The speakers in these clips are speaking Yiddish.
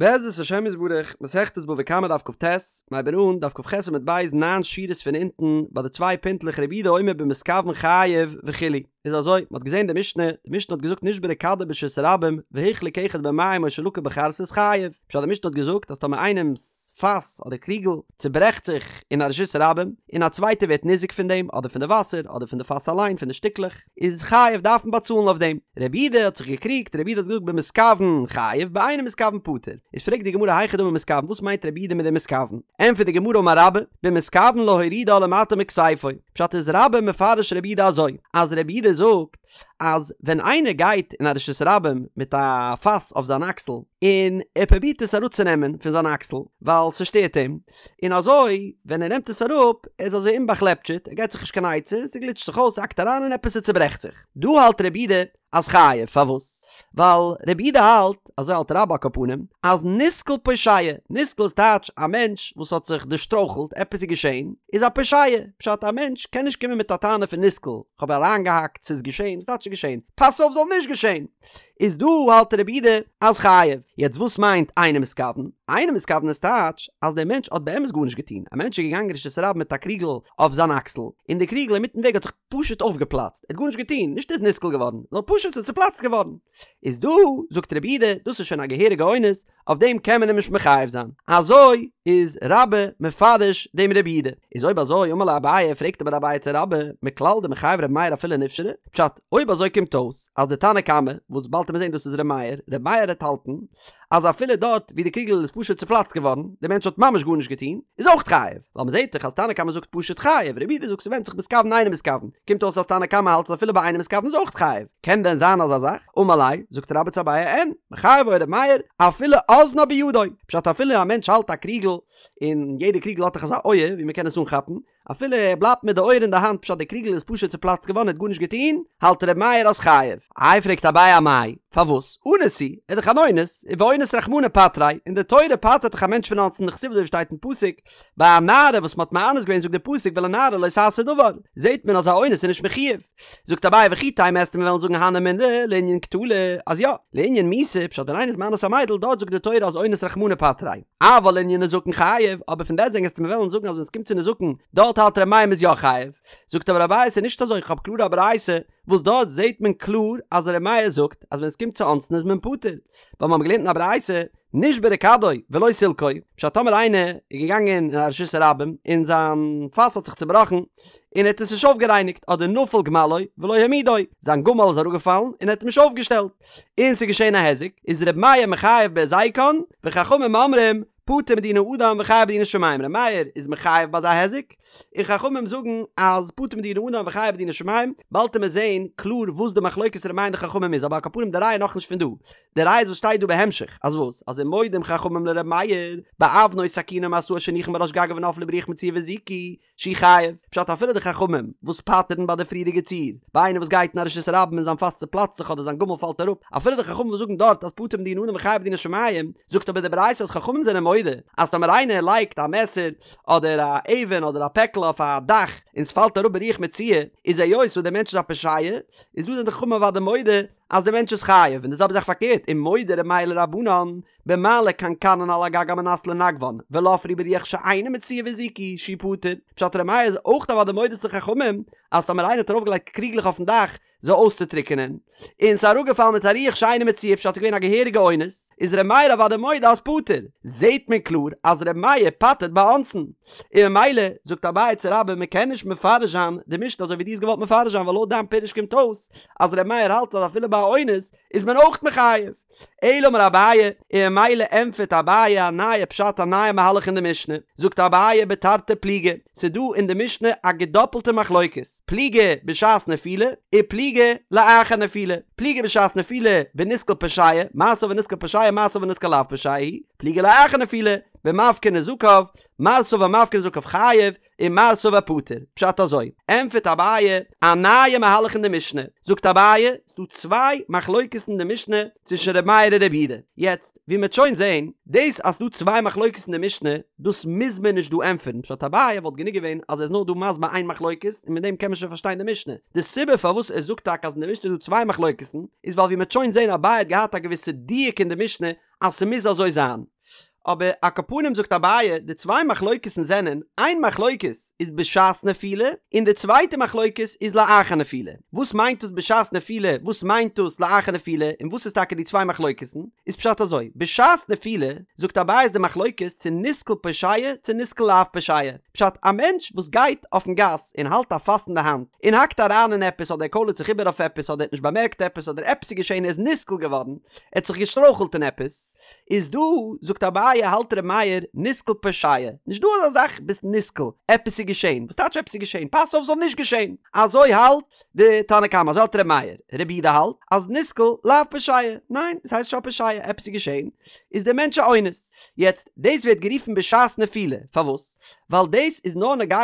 בעזרת השם יתברך, מסכת בבא קמא דף כט, מ'הייבן אן, דף כח עמוד ב', ניין שורות פון אונטן, ביי די צוויי פינטלעך רבי יהודה אומר במתכוון חייב וכו', איז אזוי, מ'האט געזען די משנה, די משנה האט געזאגט נשברה כדו ברשות הרבים, והוחלק אחד במים או שלקה בחרסית חייב, פשט די משנה האט געזאגט אז טאמער איינעמ'ס פאס אדער קריגל צוברעכט זיך אין א רשות הרבים, און א צווייטער ווערט ניזוק פון דעם, אדער פון די וואסער, אדער פון די פאס אליין, פון די שטיקלעך, איז חייב דארף מען באצאלן אויף דעם. רבי יהודה האט זיך געקריגט, רבי יהודה האט געזאגט במתכוון חייב באינו מתכוון פטור. איז פרעגט די גמרא היכי דמי מתכוון וואס מיינט רבי יהודה מיט דעם מתכוון? ענטפערט די גמרא אמר רבה, במתכוון להורידה למטה מכתפו. פשט איז רבה מפרש רבי יהודה אזוי, אז רבי יהודה זאגט אז ווען איינער גייט אין א רשות הרבים מיט א פאס אויף זיין אקסל און ער פרובירט עס אראפצונעמען פון זיין אקסל ווייל ס'שטערט אים, און אזוי ווען ער נעמט עס אראפ, ער איז אזוי אומבאכלעפטשעט, ער געט זיך נישט קיין עצה, ס'גליטשט זיך אויס, ס'האקט אריין אין עפעס ס'צוברעכט זיך. דא האלט רבי יהודה אז חייב, פארוואס? ווייל רבי יהודה האלט, אזוי האלט רבה על כל פנים, אז נתקל פושע, נתקל איז טייטש א מענטש וואס האט זיך דערשטרויכלט, עפעס איז געשען, איז א פושע, פשט א מענטש קען נישט קומען מיט א טענה פון נתקל, כ'האב אריינגעהאקט, ס'איז געשען, וואס טייטש ס'איז געשען? פאס אויף זאל נישט געשען! איז דא האלט רבי יהודה אז חייב. יעצט וואס מיינט אינו מתכוון? אינו מתכוון איז טייטש אז דער מענטש האט באמת גארנישט געטון, א מענטש איז געגאנגען רשות הרבים מיט א קריגל אויף זיין אקסל, און די קריגל אינמיטן וועג האט זיך פשוט אויפגעפלאצט, ער האט גארנישט געטון, נישט ער איז נתקל געווארן, נאר פשוט ס'איז צופלאצט געווארן. איז דא זאגט רבי יהודה דאס איז שוין א געהעריגע אונס, אויף דעם קען מען אים נישט מחייב זיין. אזוי איז רבה מפרש דעם רבי יהודה. איז אויב אזוי אמר ליה אביי, פרעגט אבער אביי צו רבה, מכלל דמחייב רבי מאיר אפילו נפשרה? פשט, אויב אזוי קומט אויס אז די תנא קמא, וואס באלד וועט מען זען דאס איז ר' מאיר, ר' מאיר העט האלטן אז אפילו דארט ווי די קריגל איז פשוט צופלאצט געווארן, די מענטש האט ממש גארנישט געטון, איז אויך חייב, ווייל מ'זעט דאך אז תנא קמא זאגט פשוט חייב, רבי יהודה זאגט ס'ווענדט זיך מתכוון אינו מתכוון, קומט אויס אז תנא קמא האלט אז אפילו ביי אינו מתכוון איז אויך חייב, קען דען זיין אזא זאך? אמר ליה, זאגט רבה צו אביי אין, מחייב היה ר' מאיר, אפילו אזנה בידו, פשט אפילו א מענטש האלט א קריגל, און יעדע קריגל האט דאך אזא אויער ווי מ'קען עס אנכאפן, אפילו ער בלייבט מיט די אויער אין די האנט פשט די קריגל איז פשוט צופלאצט געווארן ער האט גארנישט געטון, האלט ר' מאיר אז חייב. איי פרעגט אביי אמאי, פארוואס? אנוס הוא, ער איז דאך אן אונס, ואונס רחמנא פטריה, און די תורה פטר'ט דאך א מענטש פון אונסין דכתיב אזוי ווי שטייט אין פסוק, ביי א נערה וואס מ'האט מאנס געווען זאגט די פסוק ולנערה לא תעשה דבר, זעט מען אז א אונס איז נישט מחויב. זאגט אביי וכי תימא וועסטו מיר וועלן זאגן הני מילי לענין קטלא, אז יא, לענין מיתה, פשט ווען איינער איז מאנס א מיידל דארט זאגט די תורה אז אונס רחמנא פטריה, אבל לענין נזקין חייב, אבער פון דעסטוועגן וועסטו מיר וועלן זאגן אז ווען עס קומט צו נזקין דארט האלט ר' מאיר מ'איז יא חייב, זאגט אבער אביי ס'איז נישט אזוי איך האב קלאר א ברייתא וואס דארט זעט מען קלאר אז ר' מאיר זאגט אז ווען עס קומט צו אונסין איז מען פטור, ווייל מיר האבן געלערנט אין א ברייתא נשברה כדו ולא סילקו, פשט טאמער איינער איז געגאנגען אין א רשות הרבים און זיין פאס האט זיך צובראכן און ער האט עס נישט אויפגערייניגט אדער נפל גמלו ולא העמידו, זיין גמל איז אראפגעפאלן און ער האט אים נישט אויפגעשטעלט און ס'איז געשען א היזק, איז ר' מאיר מחייב בהזיקן וחכמים אומרים פטור מדיני אדם וחייב בדיני שמים, ר' מאיר איז מחייב ביי אזא היזק, און חכמים זאגן אז פטור מדיני אדם וחייב בדיני שמים, באלד וועט מען זעהן קלאר וואס די מחלוקת ר' מאיר און די חכמים איז אבער על כל פנים די ראיה נאכנישט פון דא, די ראיה איז וואס שטייט דא בהמשך, אז וואס? אז ומודים חכמים לר' מאיר, באבנו סכינו ומשאו שהניחן בראש גגו ונפלו ברוח מצויה והזיקו, שהוא חייב, פשט אפילו די חכמים וואס פטר'ן ביי די פריערדיגע ציור, ביי איינער וואס גייט אין א רשות הרבים און זיין פאס צופלאצט זיך אדער זיין גמל פאלט אראפ, אפילו די חכמים וואס זאגן דארט אז פטור מדיני אדם וחייב בדיני שמים, זאגט אבער די ברייתא אז חכמים זענען מודה אז טאמער איינער לייגט א מעסער אדער א אבן אדער א פעקל אויף א דאך און ס'פאלט אראפ ברוח מצויה, איז היות וואס דער מענטש איז א פושע, איז דא זענען די חכמים אוודאי מודה אז דער מענטש איז חייב, און די זעלבע זאך פארקערט, ומודה ר' מאיר לרבנן, במעלה קנקנין על הגג על מנת לנגבן, ונפלו ברוח שאינה מצויה והזיקו, שהוא פטור. פשט ר' מאיר איז אויך אוודאי מודה צו די חכמים, אז טאמער איינער האט ארויפגעלייגט קריגלעך אויפן דאך זיי אויסצוטריקענען, און ס'איז אראפגעפאלן מיט א רוח שאינה מצויה פשט ס'איז געווען א געהעריגע אונס, איז ר' מאיר אוודאי מודה אז פטור. זעהט מען קלאר אז ר' מאיר פטר'ט ביי אונסין. און ממילא זאגט אביי צו רבה מען קען נישט מפרש זיין די משנה אזוי ווי דו האסט געוואלט מפרש זיין ווייל לויט דיין פירוש קומט אויס אז ר' מאיר האלט אז אפילו ביי א אונס איז מען אויך מחייב. אלא אמר אביי, און ממילא ענטפערט אביי א נייע פשט א נייע מהלך אין די משנה, זאגט אביי בתרתי פליגי, ס'איז דא אין די משנה א געדאפלטע מחלוקת, פליגי בשעת נפילה, ופליגי לאחר נפילה, פליגי בשעת נפילה בנתקל פושע, מר סבר נתקל פושע מר סבר נתקל לאו פושע הוא, פליגי לאחר נפילה. במפקיר נזקיו, מר סבר מפקיר נזקיו חייב, און מר סבר פטור. פשט אזוי, ענטפערט אביי א נייע מהלך אין די משנה, זאגט אביי, ס'דא צוויי מחלוקת'ן אין די משנה צווישן ר' מאיר און ר' יהודה, יעצט, ווי מ'עט שוין זעהן, דאס אז ס'דא צוויי מחלוקת'ן אין די משנה, דאס מוז מען נישט דא ענטפערן, פשט אביי וואלט גענוג געווען אז ער איז נאר דא מסביר איין מחלוקת און מיט דעם קען מען שוין פארשטיין די משנה, די סיבה פארוואס ער זאגט טאקע אז אין די משנה איז דא צוויי מחלוקת'ן, איז ווייל ווי מ'עט שוין זעהן אביי האט געהאט א געוויסע דיוק אין די משנה אז ס'מוז אזוי זיין. אבער על כל פנים זאגט אביי, די צוויי מחלוקת'ן זענען, איין מחלוקת איז בשעת נפילה, און די צווייטע מחלוקת איז לאחר נפילה. וואס מיינט דאס בשעת נפילה, וואס מיינט דאס לאחר נפילה, און וואס איז טאקע די צוויי מחלוקת'ן? איז פשט אזוי, בשעת נפילה, זאגט אביי איז די מחלוקת צו נסקל פושע צו נסקל לאו פושע. פשט, א מענטש וואס גייט אויפן גאס און האלט א פאס אין די האנט, און האקט אריין אין עפעס אדער ער קוילערט זיך איבער אויף עפעס אדער ער האט נישט באמערקט עפעס אדער עפעס איז געשען ער איז נסקל געווארן, ער האט זיך געשטרויכלט אין עפעס, איז דא, זאגט אביי, האלט ר' מאיר, נסקל פושע, נישט דא אזא זאך ביסט נסקל, עפעס איז געשען, וואס טייטש עפעס איז געשען, פאס אויף ס'זאל נישט געשען, אזוי האלט די תנא קמא, אזוי האלט ר' מאיר, רבי יהודה האלט אז נסקל לאו פושע, ניין, עס הייסט נישט א פושע, עפעס איז געשען, איז דער מענטש א אונס. יעצט, דאס ווערט גערופן בשעת נפילה, פארוואס? ווייל דאס איז נאר נוגע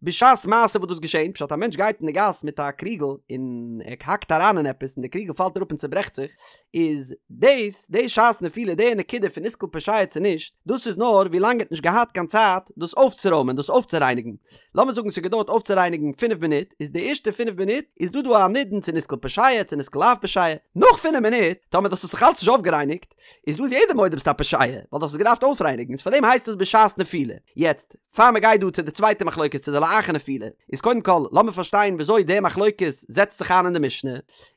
בשעת מעשה וואס דאס געשען, פשט א מענטש גייט אין די גאס מיט א קריגל און ער האקט אריין אין עפעס און די קריגל פאלט אראפ און צוברעכט זיך, איז דאס די שעת נפילה די נקודה פון נסקל פושע צו נישט, דאס איז נאר ווי לאנג ער האט נישט געהאט קיין צייט דאס אויפצורוימען דאס אויפצורייניגן, לאמיר זאגן ס'האט געדויערט אויפצורייניגן פינף מינוט, איז די ערשטע פינף מינוט איז דא דא א נידון צו נסקל פושע צו נסקל לאו פושע, נאך פינף מינוט טאמער דאס האט זיך אלץ נישט אויפגערייניגט, איז דא איז יעדער מודה ביסט א פושע, ווייל דו האסט עס געדארפט אויפרייניגן, איז פארדעם הייסט עס בשעת נפילה. יעצט, פאר מען גייט דא צו די צווייטע מחלוקת צו די לאחר נפילה, איז קודם כל לאמיר פארשטיין וויאזוי די מחלוקת זעצט זיך איין אין די משנה,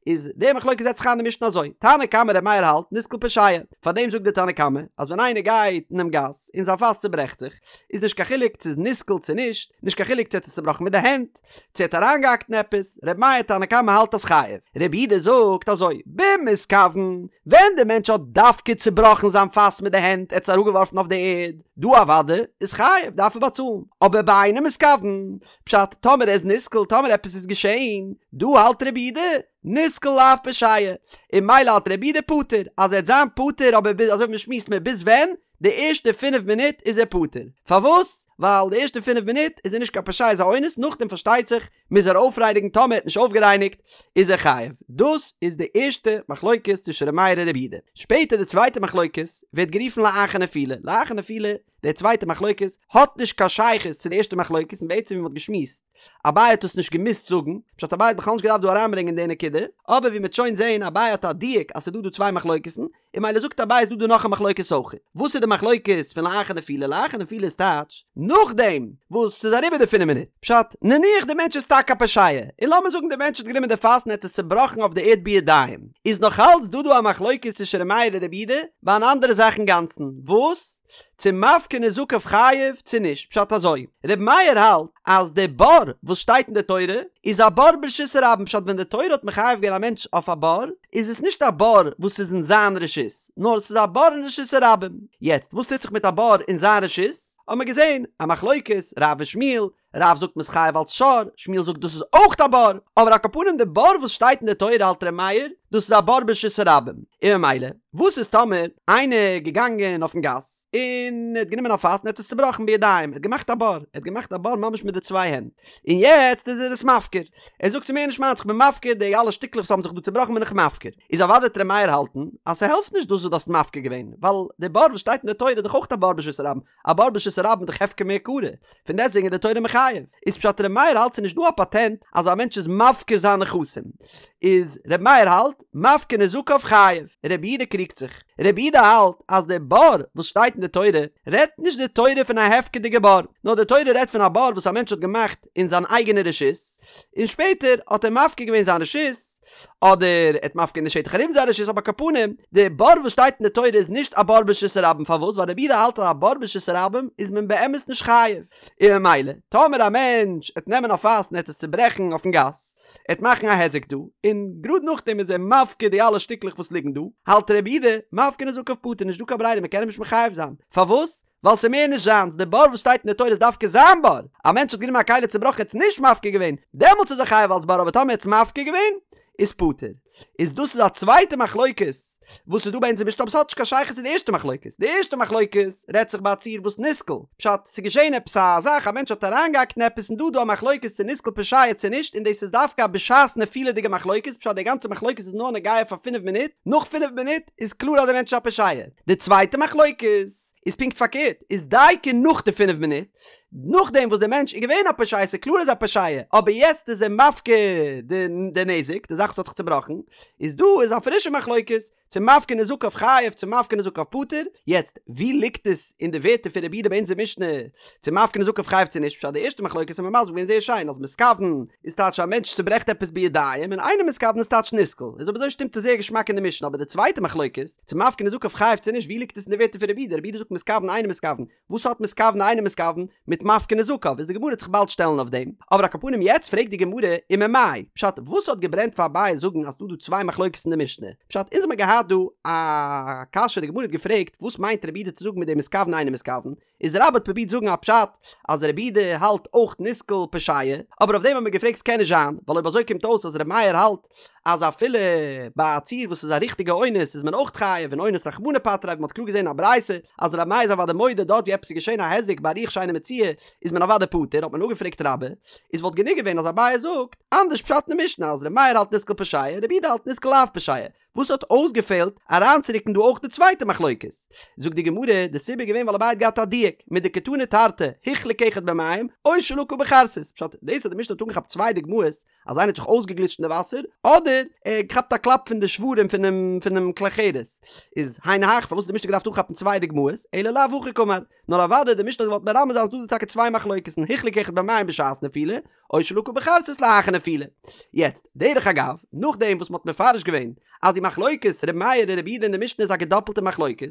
איז די מחלוקת זעצט זיך איין אין די משנה אזוי, תנא קמא ר' מאיר האלט נסקל פושע, פארדעם זאגט די תנא קמא אז ווען איינער גייט אינעם גאס און זיין פאס צוברעכט זיך, איז נישט קיין חילוק צו איז נסקל צו נישט, נישט קיין חילוק צו ער האט עס צובראכן מיט די הענט, צו ער האט אריינגעהאקט אין עפעס, ר' מאיר תנא קמא האלט אז חייב, ר' יהודה זאגט אזוי, במתכוון, ווען די מענטש האט דווקא צובראכן זיין פאס מיט די הענט, ער האט עס אראפגעווארפן אויף די ערד, דא אוודאי איז חייב, דארף ער באצאלן, אבער באינו מתכוון, פשט, טאמער ער איז נסקל, טאמער עפעס איז געשען, דא האלט ר' יהודה, נסקל לאו פושע, און ממילא האלט ר' יהודה פטור, אז ער וועט זיין פטור אבער ביז, אזוי ווי מ'שמועסט מער ביז ווען? די ערשטע פינף מינוט איז ער פטור. פארוואס? ווייל די ערשטע פינף מינוט איז ער נישט קיין פושע איז א אונס, נאכדעם פארשטייט זיך מוז ער אויפרייניגן טאמער ער האט נישט אויפגערייניגט איז ער חייב. דאס איז די ערשטע מחלוקת צווישן ר' מאיר און ר' יהודה. שפעטער די צווייטע מחלוקת ווערט גערופן לאחר נפילה. לאחר נפילה די צווייטע מחלוקת האט נישט קיין שייכות צו די ערשטע מחלוקת און בעצם ווי מען האט געשמועסט אביי האט עס נישט געמוזט זאגן, פשט אביי האט בכלל נישט געדארפט דא אריינברענגען די נקודה, אבער ווי מען וועט שוין זעהן אביי האט א דיוק אז ס'איז דא דא צוויי מחלוקת'ן, און ממילא זאגט אביי איז דא דא נאך א מחלוקת אויך. וואס איז די מחלוקת פון לאחר נפילה? לאחר נפילה איז טייטש נאכדעם וואס ס'איז אריבער די פינף מינוט. פשט, נניח די מענטש איז טאקע א פושע, און לאמיר זאגן די מענטש האט גענומען די פאס און האט עס צובראכן אויף די ערד בידיים, איז נאך אלץ דא דא א מחלוקת צווישן ר' מאיר און ר' יהודה ביי אן אנדערע זאך אינגאנצן, וואס? צו מפקיר נזקיו חייב צו נישט, פשט אזוי, ר' מאיר האלט אז די בור וואס שטייט אין די תורה איז א בור ברשות הרבים פשט ווען די תורה האט מחייב געווען א מענטש אויף א בור איז עס נישט א בור וואס איז אין זיין רשות נאר עס איז א בור אין רשות הרבים, יעצט וואס טוט זיך מיט א בור אין זיין רשות האט מען געזען א מחלוקת רב ושמואל, רב זאגט מ'איז חייב אלץ שור, שמואל זאגט דאס איז אויך א בור, אבער על כל פנים די בור וואס שטייט אין די תורה האלט ר' מאיר דאס איז א בור ברשות הרבים, און ממילא וואס איז טאמער איינער געגאנגען אויפן גאס און ער האט גענומען א פאס און ער האט עס צובראכן בידיים, ער האט געמאכט א בור, ער האט געמאכט א בור ממש מיט די צוויי הענט, און יעצט איז ער עס מפקיר, ער זאגט ס'איז מער נישט מיינס איך בין מפקיר די אלע שטיקלעך וואס האבן זיך דא צובראכן בין איך מפקיר, איז אוודאי וועט ר' מאיר האלטן אז ס'העלפט נישט דאס וואס דו האסט מפקיר געווען, ווייל די בור וואס שטייט אין די תורה איז דאך אויך א בור ברשות הרבים, א בור ברשות הרבים איז דאך הפקר מעיקרא, פון דעסטוועגן איז די תורה מחייב. איז פשט ר' מאיר האלט ס'איז נישט דא א פאטענט אז א מענטש איז מפקיר זיין נכסים. איז ר' מאיר האלט, מפקיר נזקיו חייב. ר' יהודה קריגט זיך. ר' יהודה האלט אז די בור וואס שטייט אין די תורה, רעדט נישט די תורה פון א הפקר'דיגע בור, נאר די תורה רעדט פון א בור וואס א מענטש האט געמאכט אין זיין אייגענע רשות, און שפעטער האט ער מפקיר געווען זיין רשות, אדער ער האט מפקיר געווען די שטח ארום זיין רשות אבער על כל פנים די בור וואס שטייט אין די תורה איז נישט א בור ברשות הרבים פארוואס ווייל רבי יהודה האלט אז א בור ברשות הרבים איז מען באמת נישט חייב און ממילא טאמער א מענטש עט נעמען א פאס און עט עס צוברעכן אויפן גאס עט מאכן א היזק דא און גראד נאכדעם איז ער מפקיר די אלע שטיקלעך וואס ליגן דא האלט רבי יהודה מפקיר נזקיו פטור נישט דא קיין ברירה מען קען אים נישט מחייב זיין פארוואס ווייל ס'איז מער נישט זיינס, די בור וואס שטייט אין די תורה איז דווקא זיין בור, א מענטש האט גענומען א כלי צובראכן ער האט עס נישט מפקיר געווען, דעמאלטס איז ער חייב אלס בור אבער טאמער ער האט עס מפקיר געווען איז פטור. איז דאס איז א צווייטע מחלוקת. וואס איז דא ביי אונזער משנה אבער ס'האט נישט קיין שייכות צו די ערשטע מחלוקת, די ערשטע מחלוקת רעדט זיך ביי א ציור וואס נסקל, פשט, ס'איז געשען עפעס א זאך א מענטש האט אריינגעהאקט אין עפעס און דא איז דא א מחלוקת צו נסקל פושע צו נישט און דאס איז דווקא א בשעת נפילה'דיגע מחלוקת פשט די גאנצע מחלוקת איז נאר נוגע פאר פינף מינוט, נאך פינף מינוט איז קלאר אז די מענטש איז א פושע. די צווייטע מחלוקת איז פונקט פארקערט, איז דייקא נאך די פינף מינוט, נאכדעם וואס דער מענטש איז געווען א פושע, ס'איז קלאר ער איז א פושע, אבער יעצט איז ער מפקיר די די נזק, די זאך וואס האט זיך צובראכן, איז דא איז א פרישע מחלוקת, צו מפקיר נזקיו חייב צו מפקיר נזקיו פטור, יעצט ווי ליגט עס אין די ווערטער פון רבי יהודה ביי אונזער משנה, צו מפקיר נזקיו חייב צו נישט, פשט די ערשטע מחלוקת האט מען מסביר געווען זייער שיין אז מתכוון איז טייטש א מענטש צוברעכט עפעס בידיים און אינו מתכוון איז טייטש נסקל, איז אויב אזוי שטימט עס זייער געשמאק אין די משנה, אבער די צווייטע מחלוקת, צו מפקיר נזקיו חייב צו נישט ווי ליגט עס אין די ווערטער פון רבי יהודה, רבי יהודה זאגט מתכוון אינו מתכוון, וואס האט מתכוון אינו מתכוון מיט מפקיר נזקיו איז די גמרא וועט זיך באלד שטעלן אויף דעם, אבער על כל פנים יעצט פרעגט די גמרא וממאי פשט וואס האט געברענט פאר אביי זאגן אז ס'דא דא צוויי מחלוקת אין די משנה פשט אונז האמיר געהאט דא א קשיא די גמרא האט געפרעגט וואס מיינט רבי יהודה צו זאגן מיט דעם מתכוון אינו מתכוון איז רבה האט פרובירט זאגן א פשט אז רבי יהודה האלט אויך נסקל פושע אבער אויף דעם האט מען געפרעגט ס'קען נישט זיין ווייל אויב אזוי קומט אויס אז רבי מאיר האלט אז אפילו ביי א ציור וואס איז א ריכטיגע אונס איז מען אויך חייב און אונס רחמנא פטריה ווי מען האט קלאר געזען אין א ברייתא אז רבי מאיר איז אוודאי מודה דארט ווי עפעס איז געשען א היזק ביי רוח שאינה מצויה איז מען אוודאי פטור האט מען אפגעפרעגט רבה איז וואלט גענוג געווען אז אביי זאגט אנדערש פשט אין די משנה אז רבי מאיר האלט נסקל פושע רבי יהודה האלט נסקל לאו פושע וואס האט אויסגעפעלט אריינצורוקן דא אויך די צווייטע מחלוקת? זאגט די גמרא, די סיבה איז געווען ווייל אביי האט געהאט א דיוק, מדקתני תרתי, הוחלק אחד במים, או שלקה בחרסית, פשט, דאס אז די משנה האט אנגעכאפט צוויי דוגמאות, אז איינער האט זיך אויסגעגליטשט אין די וואסער, אדער ער האט געכאפט א קלאפ פון די שברים פונעם פונעם כלי חרס, איז היינו הך, פארוואס האט די משנה געדארפט אנכאפן צוויי דוגמאות, אלא לאו הכי קאמר, נאר אוודאי די משנה האט געוואלט מרמז זיין אז דא איז טאקע צוויי מחלוקת'ן, הוחלק אחד במים בשעת נפילה, או שלקה בחרסית לאחר נפילה. יעצט, דרך אגב, נאכדעם וואס מ'האט מפרש געווען אז די מחלוקת ר' מאיר און ר' יהודה אין די משנה איז א געדאפלטע מחלוקת,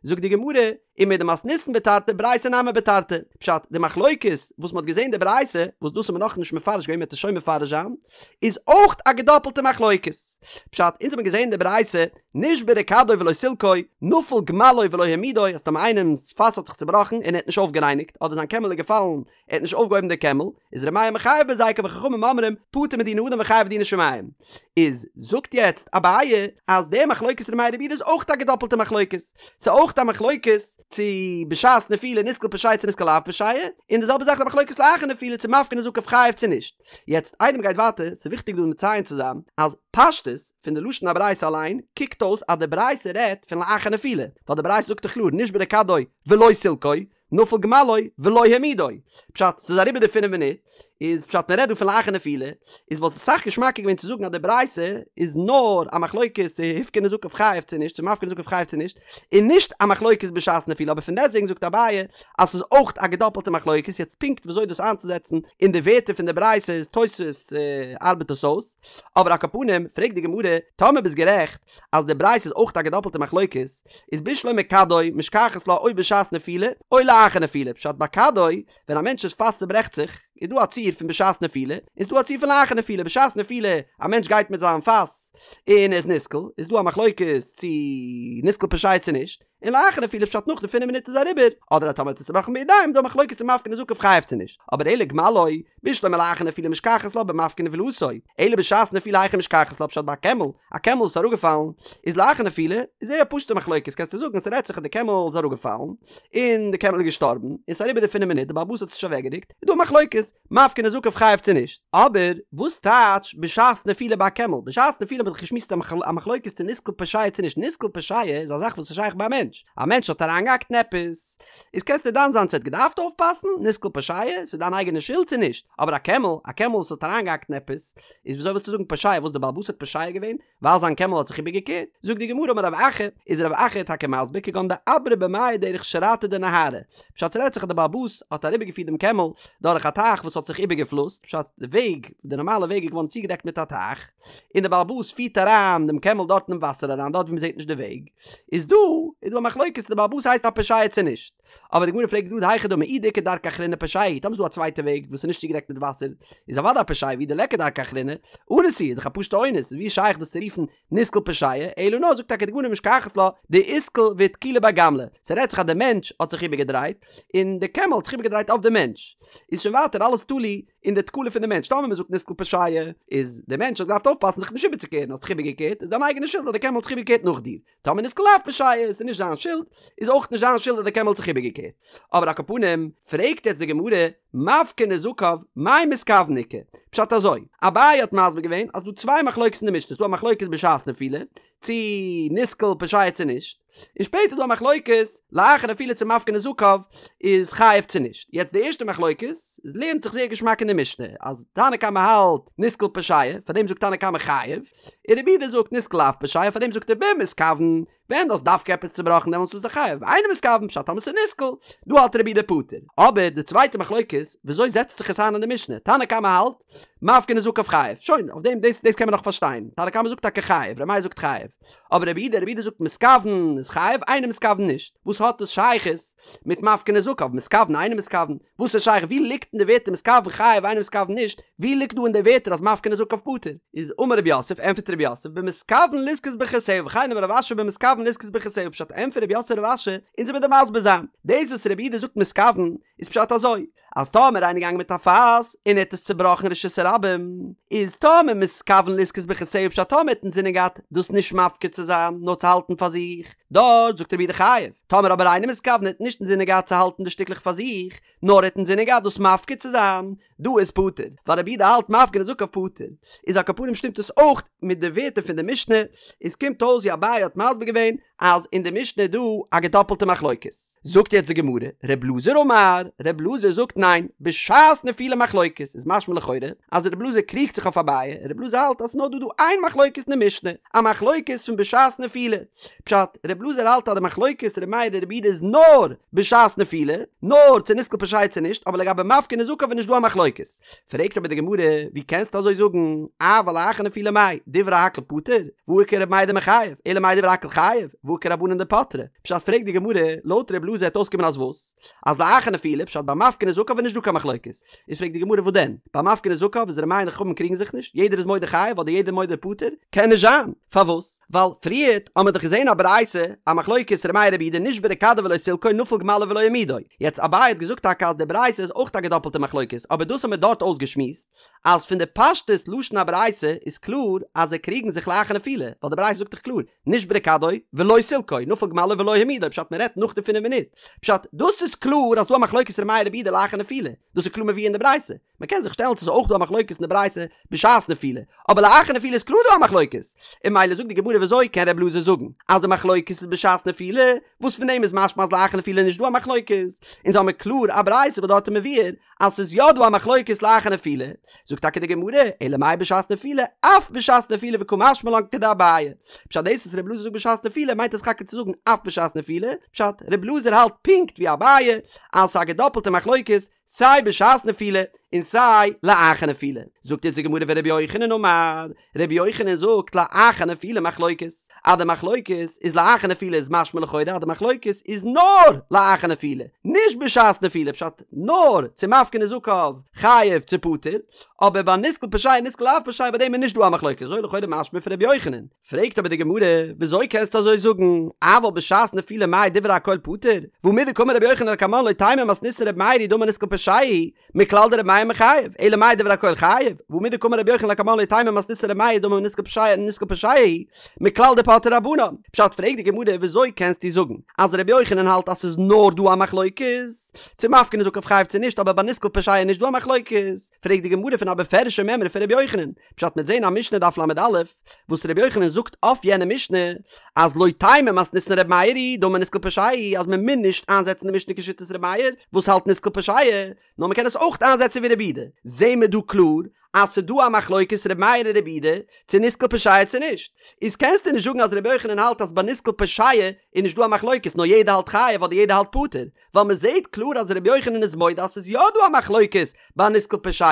זאגט די גמרא, ומדמתניתין בתרתי ברייתא נמי בתרתי, פשט, די מחלוקת וואס מ'האט געזען די ברייתא, וואס דאס האט מען נאכנישט מפרש געווען מ'וועט עס שוין מפרש זיין, איז אויך א געדאפלטע מחלוקת. פשט, אונז האבן געזען די ברייתא, נשברה כדו ולא סילקו, נפל גמלו ולא העמידו, אז טאמער איינעמ'ס פאס האט זיך צובראכן און ער האט נישט אויפגערייניגט, אדער זיין קעמל איז געפאלן ער האט נישט אויפגעהויבן די קעמל, איז ר' מאיר מחייב בהזיקן וחכמים אומרים פטור מדיני אדם וחייב בדיני שמים. איז זאגט יעצט אביי אז די מחלוקת ר' מאיר רבי יהודה איז אויך א געדאפלטע מחלוקת, ס'איז אויך א מחלוקת צו בשעת נפילה נסקל פושע צו נסקל לאו פושע, און די זעלבע זאך איז א מחלוקת לאחר נפילה צו מפקיר נזקיו חייב צו נישט. יעצט איידער מ'גייט ווייטער, ס'איז וויכטיג דא מציין צו זיין אז פשטות פון די לשון הברייתא אליין קוקט אויס אז די ברייתא רעדט פון לאחר נפילה, ווייל די ברייתא זאגט דאך קלאר נשברה כדו ולא סילקו, נפל גמלו ולא העמידו. פשט, ס'איז אריבער די פינף מינוט, איז פשט מ'רעדט דא פון לאחר נפילה, איז וואלט עס אסאך געשמאקער געווען צו זאגן אז די ברייתא איז נאר א מחלוקת צו הפקיר נזקיו חייב צו נישט, צו מפקיר נזקיו חייב צו נישט, און נישט א מחלוקת בשעת נפילה, אבער פון דעסטוועגן זאגט אביי אז ס'איז אויך א געדאפלטע מחלוקת, יעצט פונקט וויאזוי דאס איינצוזעצן אין די ווערטער פון די ברייתא איז תוספות ארבעט עס אויס, אבער על כל פנים פרעגט די גמרא, טאמער ביסט גערעכט אז די ברייתא איז אויך א געדאפלטע מחלוקת, איז בשלמא כדו משכחת לה או בשעת נפילה או לאחר נפילה, פשט ביי כדו, ווען א מענטש'ס פאס צוברעכט זיך, איז דא א ציור פון בשעת נפילה, און ס'איז דא א ציור פון לאחר נפילה, בשעת נפילה, א מענטש גייט מיט זיין פאס און ער איז נסקל, איז דא א מחלוקת צו נסקל פושע צו נישט, און לאחר נפילה פשט נאך די פינף מינוט איז אריבער, אדער אז טאמער האט עס צובראכן בידיים איז דא א מחלוקת צו מפקיר נזקיו חייב צו נישט, אבער אלא גמלו, בשלמא לאחר נפילה משכחת לה במפקיר נבילתו, אלא בשעת נפילה היכי משכחת לה פשט ביי א קעמל, א קעמל איז אראפגעפאלן, איז לאחר נפילה, איז זייער א פשוטע מחלוקת קענסטו זאגן ס'רעדט זיך אז די קעמל איז אראפגעפאלן, און די קעמל איז געשטארבן, און ס'איז אריבער די פינף מינוט די בעל הבית האט עס נישט אוועקגערוקט, איז דא א מחלוקת, מפקיר נזקיו חייב צו נישט. אבער וואס טייטש בשעת נפילה ביי א קעמל? בשעת נפילה האט מען דאך געשמועסט א מחלוקת צו נסקל פושע צו נישט, נסקל פושע איז א זאך וואס איז שייך ביי א מענטש, א מענטש האט אריינגעהאקט אין עפעס, איז קענסטו דן זיין צו ער האט געדארפט אויפפאסן, נסקל פושע, ס'איז דיין אייגענע שולד צו נישט, אבער א קעמל, א קעמל וואס האט אריינגעהאקט אין עפעס, איז וויאזוי ווילסטו זאגן פושע וואס די בעל הבית האט פושע געווען ווייל זיין קעמל האט זיך איבערגעקערט? זאגט די גמרא אמר רב אחא, איז רב אחא טאקע מסביר כגון דעברה במיא דרך שרעתא דנהרא, פשט ס'רעדט זיך אז די בעל הבית האט אריבערגעפירט דעם קעמל דורך א טייך וואס האט זיך איבערגעפלוסט, פשט די וועג, די נארמאלע וועג איז געווארן צוגעדעקט מיט א טייך, און די בעל הבית פירט אריין דעם קעמל דארט אינעם וואסער אריין דארט ווי מ'זעט נישט די וועג, איז דא איז דא א מחלוקת צו די בעל הבית הייסט א פושע צו נישט. אבער די גמרא פרעגט גראד היכי דמי אי דאיכא דרכא אחרינא פושע הוא, טאמער איז דא א צווייטע וועג וואס איז נישט צוגעדעקט מיט וואסער, איז אוודאי א פושע ואי דליכא דרכא אחרינא, אנוס הוא, איז דאך א פשוטע אונס, ווי איז שייך דאס צו רופן נסקל פושע, אלא נאר זאגט טאקע די גמרא משכחת לה דאתקיל ואתקילו ביה גמלא, ס'רעדט זיך אז די מענטש האט זיך איבערגעדרייט, און די קעמל האט זיך איבערגעדרייט אויף די מענטש, איז שוין ווייטער אלעס תלוי אין די תקלה פון די מענטש, טאמער מ'זאגט נסקל פושע, איז די מענטש האט געדארפט אויפפאסן זיך נישט איבערצוקערן, האסט זיך איבערגעקערט, איז דיין אייגענע שולד אז די קעמל האט זיך איבערגעקערט נאך דיר. טאמער נסקל לאו פושע איז נישט זיין שולד, איז אויך נישט זיין שולד אז די קעמל האט זיך איבערגעקערט. אבער על כל פנים, פרעגט יעצט די גמרא, מפקיר נזקיו, מאי מתכוון איכא? פשט אזוי, אביי האט מסביר געווען אז ס'דא צוויי מחלוקת אין די משנה, ס'דא א מחלוקת בשעת נפילה, צי נסקל פושע צו נישט, און שפעטער איז דא א מחלוקת לאחר נפילה צו מפקיר נזקיו איז חייב צו נישט. יעצט די ערשטע מחלוקת איז לערנט זיך זייער געשמאק אין די משנה, אז תנא קמא האלט נסקל פושע, פארדעם זאגט תנא קמא חייב, און רבי יהודה זאגט נסקל לאו פושע פאר דעם זאגט ער במתכוון, ווען דו האסט דווקא עפעס צובראכן דעמאלטס ביסטו חייב, באינו מתכוון פשט טאמער ס'איז נסקל, דא האלט רבי יהודה פטור. אבער די צווייטע מחלוקת, וויאזוי זעצט זיך עס איין אין די משנה? תנא קמא האלט, מפקיר נזקיו חייב, שוין, אויף דעם דאס דאס קען מען נאך פארשטיין, תנא קמא זאגט טאקע חייב, ר' מאיר זאגט חייב, אבער רבי יהודה, רבי יהודה זאגט מתכוון איז חייב, אינו מתכוון נישט, וואס האט דאס שייכות מיט מפקיר נזקיו, מתכוון אינו מתכוון, וואס איז שייך? ווי ליגט אין די ווערטער מתכוון חייב אינו מתכוון נישט? ווי ליגט דא אין די ווערטער אז מפקיר נזקיו פטור? איז אמר רב יוסף, ענטפערט רב יוסף, במתכוון לזכות ברכותיה, וכן אמר רב אשי במתכוון לזכות ברכותיה, פשט ענטפערט רב יוסף רב אשי, אונז וועמיר דיר מסביר זיין, דאס וואס רבי יהודה זאגט מתכוון, איז פשט אזוי, אז טאמער איינער געגאנגען מיט א פאס און ער האט עס צובראכן רשות הרבים, איז טאמער מתכוון לזכות ברכותיה פשט טאמער ער האט אינזינען געהאט דאס נישט מפקיר צו זיין נאר צו האלטן פאר זיך, דארט זאגט רבי יהודה חייב, טאמער אבער אינו מתכוון ער האט נישט אינזינען געהאט צו האלטן די שטיקלעך פאר זיך, נאר ער האט אינזינען געהאט דאס מפקיר צו זיין, דא איז פטור, ווייל רבי יהודה האלט מפקיר נזקיו פטור. איז על כל פנים שטימט עס אויך מיט די ווערטער פון די משנה, איז קומט אויס ווי אביי האט מסביר געווען אז אין די משנה איז דא א געדאפלטע מחלוקת. זאגט יעצט די גמרא, ר' אלעזר אמר, ר' אלעזר זאגט ניין, בשעת נפילה מחלוקת, איז משמע לכאורה אז ר' אלעזר קריגט זיך אויף אביי, ר' אלעזר האלט אז ס'איז נאר דא דא איין מחלוקת אין די משנה, א מחלוקת פון בשעת נפילה. פשט, ר' אלעזר האלט אז די מחלוקת ר' מאיר און ר' יהודה איז נאר בשעת נפילה, נאר צו נסקל פושע צו נישט, אבער לגבי מפקיר נזקיו איז נישט דא א מחלוקת. פרעגט אבער די גמרא, ווי קענסטו אזוי זאגן, אבל לאחר נפילה מאי, דברי הכל פטור, והא איכא ר' מאיר דמחייב, אלא מאי דברי הכל חייב, והא איכא רבנן דפטרי. פשט פרעגט די גמרא, לויט ר' אלעזר העט אויסקומען אז וואס? אז לאחר נפילה, פשט ביי מפקיר נזקיו איז נישט דא קיין מחלוקת. איז פרעגט די גמרא וואס דען? ביי מפקיר נזקיו איז ר' מאיר און די חכמים קריגן זיך נישט, יעדער איז מודה חייב אדער יעדער מודה פטור? קען נישט זיין! פארוואס? ווייל פריערט האמער דאך געזען א ברייתא א מחלוקת ר' מאיר רבי יהודה נשברה כדו ולא סילקו נפל גמלו ולא העמידו, יעצט אביי האט געזאגט טאקע אז די ברייתא איז אויך א געדאפלטע מחלוקת אבער דאס האמער דארט אויסגעשמועסט אז פון די פשטות לשון הברייתא איז קלאר אז זיי קריגן זיך לאחר נפילה ווייל די ברייתא זאגט דאך קלאר נשברה כדו ולא סילקו נפל גמלו ולא העמידו פשט מען רעדט נאך די פינף מינוט פשט דאס איז קלאר אז דא א מחלוקת ר' מאיר רבי יהודה לאחר נפילה דאס איז קלאר מבואר אין די ברייתא מען קען זיך שטעלן צו ס'איז אויך דא א מחלוקת אין די ברייתא בשעת נפילה, אבער לאחר נפילה איז קלאר דא א מחלוקת, און ממילא זאגט די גמרא וויאזוי קען ר' אלעזר זאגן אז די מחלוקת איז בשעת נפילה, וואס פון דעם איז משמע אז לאחר נפילה איז נישט דא א מחלוקת, אונז האמיר קלאר א ברייתא וואס דארט איז מבואר אז ס'איז יא דא א מחלוקת לאחר נפילה, זאגט טאקע די גמרא, אלא מאי בשעת נפילה, אף בשעת נפילה וקא משמע לן כדאביי, פשט דאס וואס ר' אלעזר זאגט בשעת נפילה מיינט עס טאקע צו זאגן אף בשעת נפילה, פשט ר' אלעזר האלט פונקט ווי אביי אז ס'איז א געדאפלטע מחלוקת, סיי בשעת נפילה און סיי לאחר נפילה. זאגט אונז די גמרא ורבי יוחנן אמר, רבי יוחנן זאגט לאחר נפילה מחלוקת, אז די מחלוקת איז לאחר נפילה איז משמע לכאורה אז די מחלוקת איז נאר לאחר נפילה, נישט בשעת נפילה, פשט נאר צו מפקיר נזקיו חייב צו פטור, אבער ביי נסקל פושע נסקל לאו פושע ביי דעם איז נישט דא א מחלוקת, אזוי לכאורה משמע פון רבי יוחנן. פרעגט אבער די גמרא, וויאזוי קענסטו אזוי זאגן, אבל בשעת נפילה מאי דברי הכל פטור, והא מדקאמר רבי יוחנן לקמן לא תימא מתניתין רבי מאיר היא דאמר נסקל פושע הוא, מכלל דרבי מאיר מחייב, אלא מאי דברי הכל חייב, והא מדקאמר רבי יוחנן לקמן לא תימא מתניתין רבי מאיר דאמר נסקל פושע נסקל פושע הוא, מכלל דפטרי רבנן. פשט פרעגט די גמרא, וויאזוי קענסטו זאגן אז רבי יוחנן האלט אז ס'איז נאר דא א מחלוקת, צו מפקיר נזקיו חייב צו נישט אבער ביי נסקל פושע איז נישט דא א מחלוקת, פרעגט די גמרא פון א בפירוש'ע מימרא פון רבי יוחנן, פשט מ'עט זעהן א משנה דף ל"א, וואס רבי יוחנן זאגט אויף יענע משנה, אז לא תימא מתניתין רבי מאיר היא דאמר נסקל פושע הוא, אז מען מוז נישט איינזעצן די משנה כשיטת רבי מאיר, וואס האלט נסקל פושע, נאר מען קען עס אויך איינזעצן ווי רבי יהודה. זעהן מיר דא קלאר אז ס'דא א מחלוקת רבי מאיר און רבי יהודה, צו נסקל פושע צו נישט. איז קענסטו נישט זאגן אז רבי יוחנן האלט אז ביי נסקל פושע איז נישט דא א מחלוקת נאר יעדער האלט חייב אדער יעדער האלט פטור, ווייל מען זעהט קלאר אז רבי יוחנן איז מודה אז ס'איז יא דא א מחלוקת ביי נסקל פושע,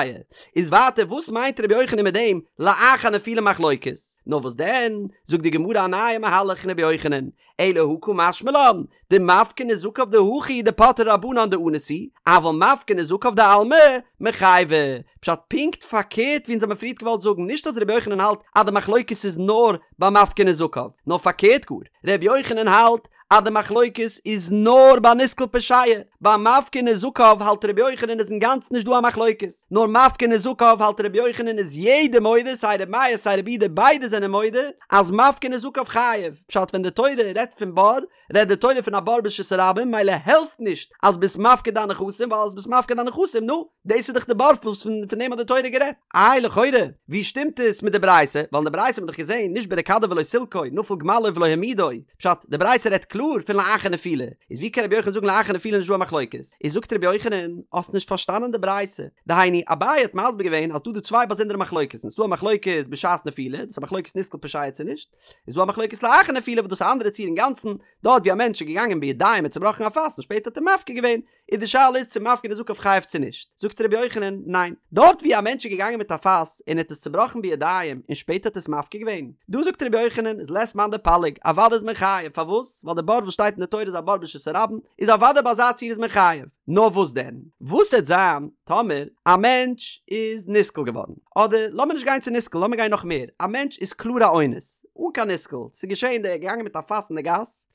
איז ווייטער וואס מיינט רבי יוחנן מיט דעם לאחר נפילה מחלוקת? נאר וואס דען, זאגט די גמרא א נייע מהלך אין רבי יוחנן, אלא הא קא משמע לן, דמפקיר נזקיו דהכא דפטרי רבנן דאנוס הוא, אבל מפקיר נזקיו דעלמא מיחייבי. פשט פונקט פארקערט ווי אונז האבן פריערט געוואלט זאגן, נישט אז רבי יוחנן האלט אז די מחלוקת איז נאר ביי מפקיר נזקיו, נאר פארקערט גאר, רבי יוחנן האלט אז די מחלוקת איז נאר ביי נסקל פושע, ביי מפקיר נזקיו האלט רבי יוחנן איז אינגאנצן נישט דא א מחלוקת, נאר מפקיר נזקיו האלט רבי יוחנן איז יעדער מודה סיי רבי מאיר סיי רבי יהודה ביידע זענען מודה אז מפקיר נזקיו חייב, פשט ווען די תורה רעדט פון בור רעדט די תורה פון א בור ברשות הרבים מילא העלפט נישט אז ביסט מפקיר דיין נכסים ווייל אז ביסט מפקיר דיין נכסים נו דאס איז דאך די בור וואס פון דעם האט די תורה גערעדט. איי לכאורה ווי שטימט עס מיט די ברייתא ווייל אין די ברייתא האט מען דאך געזען נשברה כדו ולא סילקו נפל גמלו ולא העמידו פשט די ברייתא רעדט קלאר פון לאחר נפילה איז ווי קען רבי יוחנן זאגן לאחר נפילה נישט דא א מחלוקת איז זאגט רבי יוחנן האסט נישט פארשטאנען די ברייתא דהיינו אביי האט מסביר געווען אז דא דא צוויי באזונדערע מחלוקת'ן ס'דא א מחלוקת בשעת נפילה דאס איז א מחלוקת נסקל פושע צו נישט איז דא א מחלוקת לאחר נפילה וואס דאס איז א אנדערע ציור אינגאנצן, דארט ווי א מענטש איז געגאנגען בידיים און צובראכן א פאס און שפעטער האט ער מפקיר געווען, איז די שאלה איז צו מפקיר נזקיו חייב צו נישט, זאגט רבי יוחנן, ניין, דארט ווי א מענטש איז געגאנגען מיט א פאס און ער האט עס צובראכן בידיים און שפעטער האט עס מפקיר געווען, דא זאגט רבי יוחנן איז לית מאן דפליג, אוודאי איז מען חייב, פארוואס? ווייל די בור וואס שטייט אין די תורה איז א בור ברשות הרבים, איז אוודאי ביי אזא ציור איז מען חייב. נאר וואס דען? וואס העט זיין טאמער א מענטש איז נסקל געווארן? אדער לאמיר נישט גיין צו נסקל, לאמיר גיין נאך מער, א מענטש איז קלאר א אונס, אן קיין נסקל, ס'איז געשען דער איז געגאנגען מיט א פאס אין די גאס,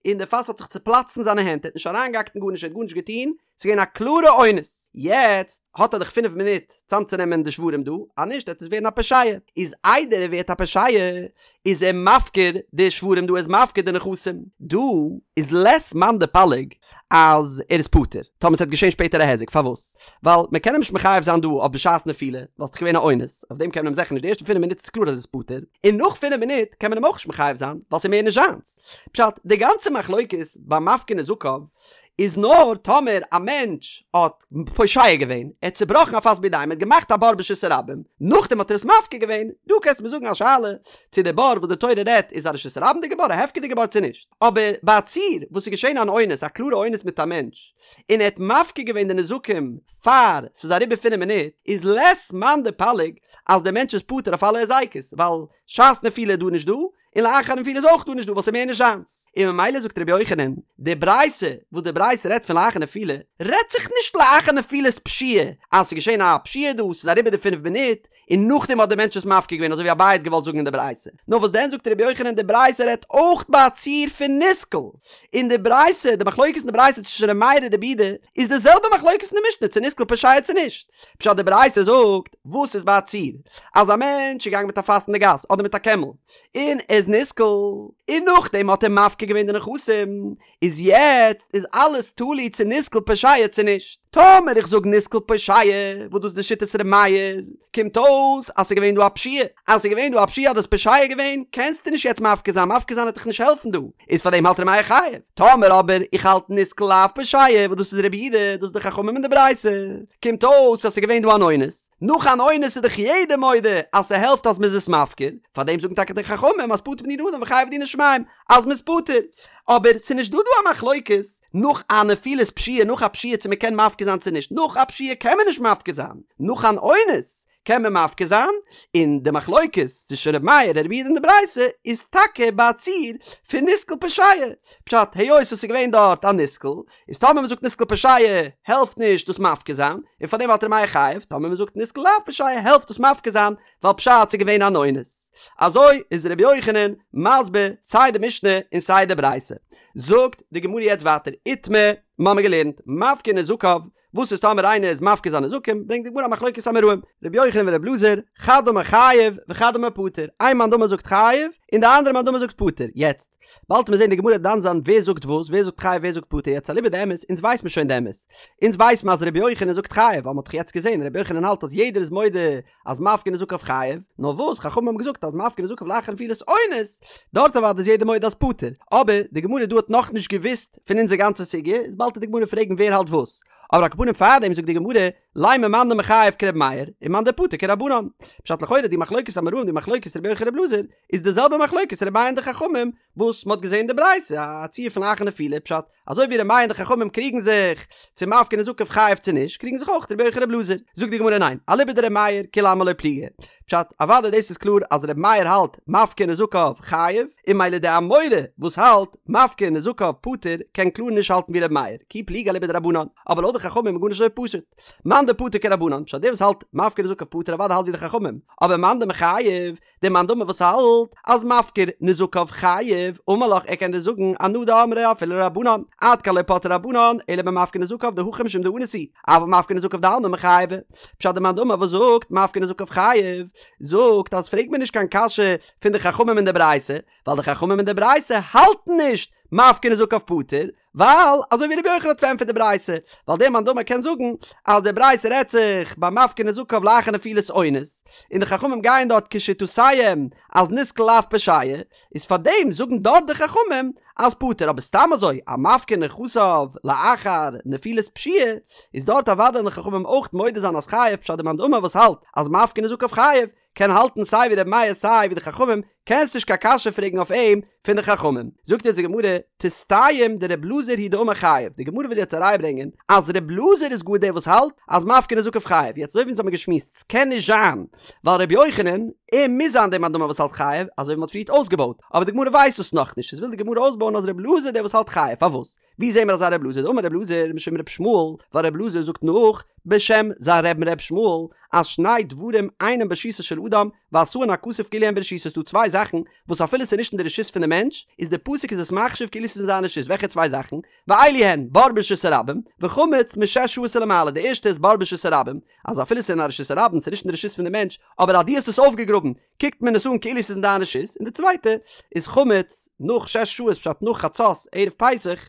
און די פאס האט זיך צופלאצט אין זיינע הענט, ער האט נישט אריינגעהאקט אין גארנישט, ער האט גארנישט געטון, ס'איז געווען א קלארע אונס. יעצט האט ער דאך פינף מינוט צאמצונעמען די שברים דא, אז נישט וועט עס ווערן א פושע. איז איידער ער ווערט א פושע, איז ער מפקיר די שברים דא, ער איז מפקיר די נכסים. דא איז לית מאן דפליג אז ער איז פטור, טאמער ס'וועט געשען שפעטער א היזק, פארוואס? ווייל מען קען אים נישט מחייב זיין דא אויף בשעת נפילה, ווייל ס'איז געווען א אונס, אויף דעם קען מען אים זיכער נישט, די ערשטע פינף מינוט איז קלאר אז ער איז פטור, און נאך פינף מינוט קען מען אים אויך נישט מחייב זיין, ווייל ס'איז מער נישט זיינס. פשט, די גאנצע מחלוקת ביי מפקיר נזקיו איז נאר טאמער א מענטש האט פושע געווען, ער האט צובראכן א פאס בידיים, ער האט געמאכט א בור ברשות הרבים, נאכדעם האט ער עס מפקיר געווען, דא קענסטו מיר זאגן א שאלה צו די בור וואס די תורה רעדט איז א רשות הרבים'דיגע בור, א הפקר'דיגע בור צו נישט, אבער ביי א ציור וואס איז געשען אן אונס, א קלארע אונס מיט א מענטש, און ער האט מפקיר געווען די נזקים פאר ס'איז אריבער פינף מינוט, איז לית מאן דפליג אז דער מענטש איז פטור אויף אלע היזקות, ווייל שעת נפילה איז דא נישט דא, און לאחר נפילה איז אויך דא נישט דא ווייל ס'איז מער נישט זיינס, און ממילא זאגט רבי יוחנן, די ברייתא וואס די ברייתא רעדט פון לאחר נפילה, רעדט זיך נישט לאחר נפילת פשיעה, אז ס'איז געשען א פשיעה דא, ס'איז אריבער די פינף מינוט, און נאכדעם האט דער מענטש עס מפקיר געווען אזוי ווי אביי האט געוואלט זאגן אין די ברייתא. נאר וואס דען זאגט רבי יוחנן די ברייתא רעדט אויך ביי א ציור פון נסקל, און די ברייתא, די מחלוקת אין די ברייתא צווישן רבי מאיר און רבי יהודה, איז די זעלבע מחלוקת אין די משנה צו נסקל פושע צו נישט. פשט די ברייתא זאגט, וואס איז ביי א ציור? אז א מענטש איז געגאנגען מיט א פאס אין די גאס אדער מיט א קעמל און ער איז נסקל און נאכדעם האט ער מפקיר געווען די נכסים איז יעצט איז אלעס תלוי צו נסקל פושע צו נישט. טאמער איך זאג נסקל פושע וואס דאס איז די שיטת ר' מאיר קומט אויס אז ס'איז געווען דא א פשיעה אז ס'איז געווען דא א פשיעה אז האסט פושע געווען קענסטו נישט יעצט מפקיר זיין מפקיר זיין וועט דיך נישט העלפן דא איז פאר דעם האלט ר' מאיר חייב. טאמער אבער איך האלט נסקל לאו פושע וואס דאס איז רבי יהודה דאס איז די חכמים אין די ברייתא קומט אויס אז ס'איז געווען דא אן אונס נאך אן אונס איז דאך יעדער מודה אז ס'העלפט אז מ'איז עס מפקיר, פארדעם זאגן טאקע די חכמים אז פטור בדיני אדם וחייב בדיני שמים אז מ'איז פטור. אבער ס'איז נישט דא דא א מחלוקת נאך א נפילת פשיעה נאך א פשיעה צו מ'קען מפקיר זיין צו נישט, נאך א פשיעה קען מען נישט מפקיר זיין, נאך אן אונס קען מען מפקיר זיין, און די מחלוקת צווישן ר' מאיר און רבי יהודה אין די ברייתא איז טאקע ביי א ציור פון נסקל פושע, פשט היות עס איז געווען דארט א נסקל, איז טאמער מ'זאגט נסקל פושע העלפט נישט דאס מפקיר זיין, און פארדעם האלט ר' מאיר חייב, טאמער מ'זאגט נסקל לאו פושע העלפט דאס מפקיר זיין, ווייל פשט ס'איז געווען אן אונס. אזוי איז ר' יוחנן מסביר סיי די משנה און סיי די ברייתא. זאגט די גמרא יעצט ווייטער איתמר, מ'האמיר געלערנט, מפקיר נזקיו, וואס איז טאמער איינער איז מפקיר זיינע נזקים, ברענגט די גמרא א מחלוקת אמוראים, ר' יוחנן ור' אלעזר, חד אמר חייב וחד אמר פטור, איין מאן דאמר זאגט חייב, און די אנדערע מאן דאמר זאגט פטור, יעצט, באלד וועט מען זען די גמרא דן זיין ווער זאגט וואס, ווער זאגט חייב ווער זאגט פטור, יעצט אליבא דאמת, אונז ווייס מיר שוין די אמת, אונז ווייס מיר אז ר' יוחנן זאגט חייב, ווייל מען האט דאך יעצט געזען ר' יוחנן האלט אז יעדער איז מודה אז מפקיר נזקיו חייב, נאר וואס חכמים האבן געזאגט אז מפקיר נזקיו לאחר נפילת אונס, דארט אוודאי איז יעדער מודה אז פטור, אבער די גמרא דא האט נאכנישט געוואוסט פון אונזער גאנצע סוגיא, איז באלד וועט די גמרא פרעגן ווער האלט וואס, אבער על כל פנים. פנים פארדעם זאגט די גמרא, לימא מאן דמחייב כר' מאיר, און מאן דפטור כרבנן. פשט לכאורה די מחלוקת אמוראים די מחלוקת רבי יוחנן ר' אלעזר איז די זעלבע מחלוקת ר' מאיר און די חכמים וואס מ'האט געזען אין די ברייתא א ציור פון לאחר נפילה פשט אזוי ווי ר' מאיר און די חכמים קריגן זיך צו מפקיר נזקיו חייב צו נישט קריגן זיך אויך רבי יוחנן ר' אלעזר זאגט די גמרא ניין אליבא דר' מאיר כולי עלמא לא פליגי פשט אוודאי דאס איז קלאר אז ר' מאיר האלט מפקיר נזקיו חייב און ממילא די אמורא וואס האלט מפקיר נזקיו פטור קען קלאר נישט האלטן ווי ר' מאיר כי פליגי אליבא דרבנן אבער לויט די חכמים איז גארנישט אזוי פשוט מאן דפטור כרבנן פשט דער וואס האלט מפקיר נזקיו פטור אוודאי האלט ווי די חכמים אבער מאן דמחייב דער מאן דאמר וואס האלט אז מפקיר נזקיו חייב, אמר לך ער קען דיר זאגן אנא דאמרי אפילו לרבנן, עד כאן לא פטרי רבנן אלא במפקיר נזקיו דהכא משום דאנוס הוא, אבל מפקיר נזקיו דעלמא מיחייבי. פשט דער מאן דאמר וואס זאגט מפקיר נזקיו חייב, זאגט אז פרעג מיר נישט קיין קשיא פון די חכמים אין די ברייתא, ווייל די חכמים אין די ברייתא האלטן נישט מפקיר נזקיו פטור, ווייל אזוי ווי רבי יוחנן האט פארענטפערט די ברייתא, ווייל דער מאן דאמר קען זאגן אז די ברייתא רעדט זיך ביי מפקיר נזקיו לאחר נפילת אונס, און די חכמים גייען דארט כשיטותיהם אז נתקל לאו פושע, איז פארדעם זאגן דארט די חכמים אז פטור, אבער סתם אזוי א מפקיר נכסיו לאחר נפילת פשיעה, איז דארט אוודאי וועלן די חכמים אויך מודה זיין אז חייב פשט דער מאן דאמר וואס האלט אז מפקיר נזקיו חייב, קען האלטן סיי ווי רבי מאיר סיי ווי די חכמים, קענסט נישט קיין קשיא פרעגן אויף אים פון די חכמים. זאגט יעצט די גמרא, תסתיים דר' אלעזר הוא דאמר חייב, די גמרא וויל יעצט אריינברענגען אז ר' אלעזר איז גאר דער וואס האלט אז מפקיר נזקיו חייב, יעצט אזוי ווי אונז האבן געשמועסט ס'קען נישט זיין ווייל ר' יוחנן, ער מוז זיין דער מאן דאמר וואס האלט חייב, אזוי ווי מ'האט פריערט אויסגעבויט, אבער די גמרא ווייסט דאס נאכנישט, איז וויל די גמרא אויסבויען אז ר' אלעזר איז דער וואס האלט חייב, פארוואס? ווי זעהן מיר אזא ר' אלעזר? דאמר ר' אלעזר משום ר' ישמעאל, ווייל ר' אלעזר זאגט נאך בשם זיין רבי'ן ר' ישמעאל, אז שני דברים אינם ברשותו של אדם, ועשאן הכתוב כאילו הן ברשותו ס'דא צוויי זאכן וואס אפילו ס'איז נישט אין די רשות פון די מענטש, איז די פסוק איז עס מחשיב כאילו ס'איז אין זיין רשות, וועלכע צוויי זאכן? ואלו הן, בור ברשות הרבים, וחמץ משש שעות ולמעלה, די ערשטע איז בור ברשות הרבים, אז אפילו ס'איז אין א רשות הרבים, ס'איז נישט אין די רשות פון די מענטש, אבער אז דו האסט עס אויפגעגראבן, קוקט מען עס אן כאילו ס'איז אין דיין רשות, און די צווייטע איז חמץ נאך שש שעות פשט נאך חצות ערב פסח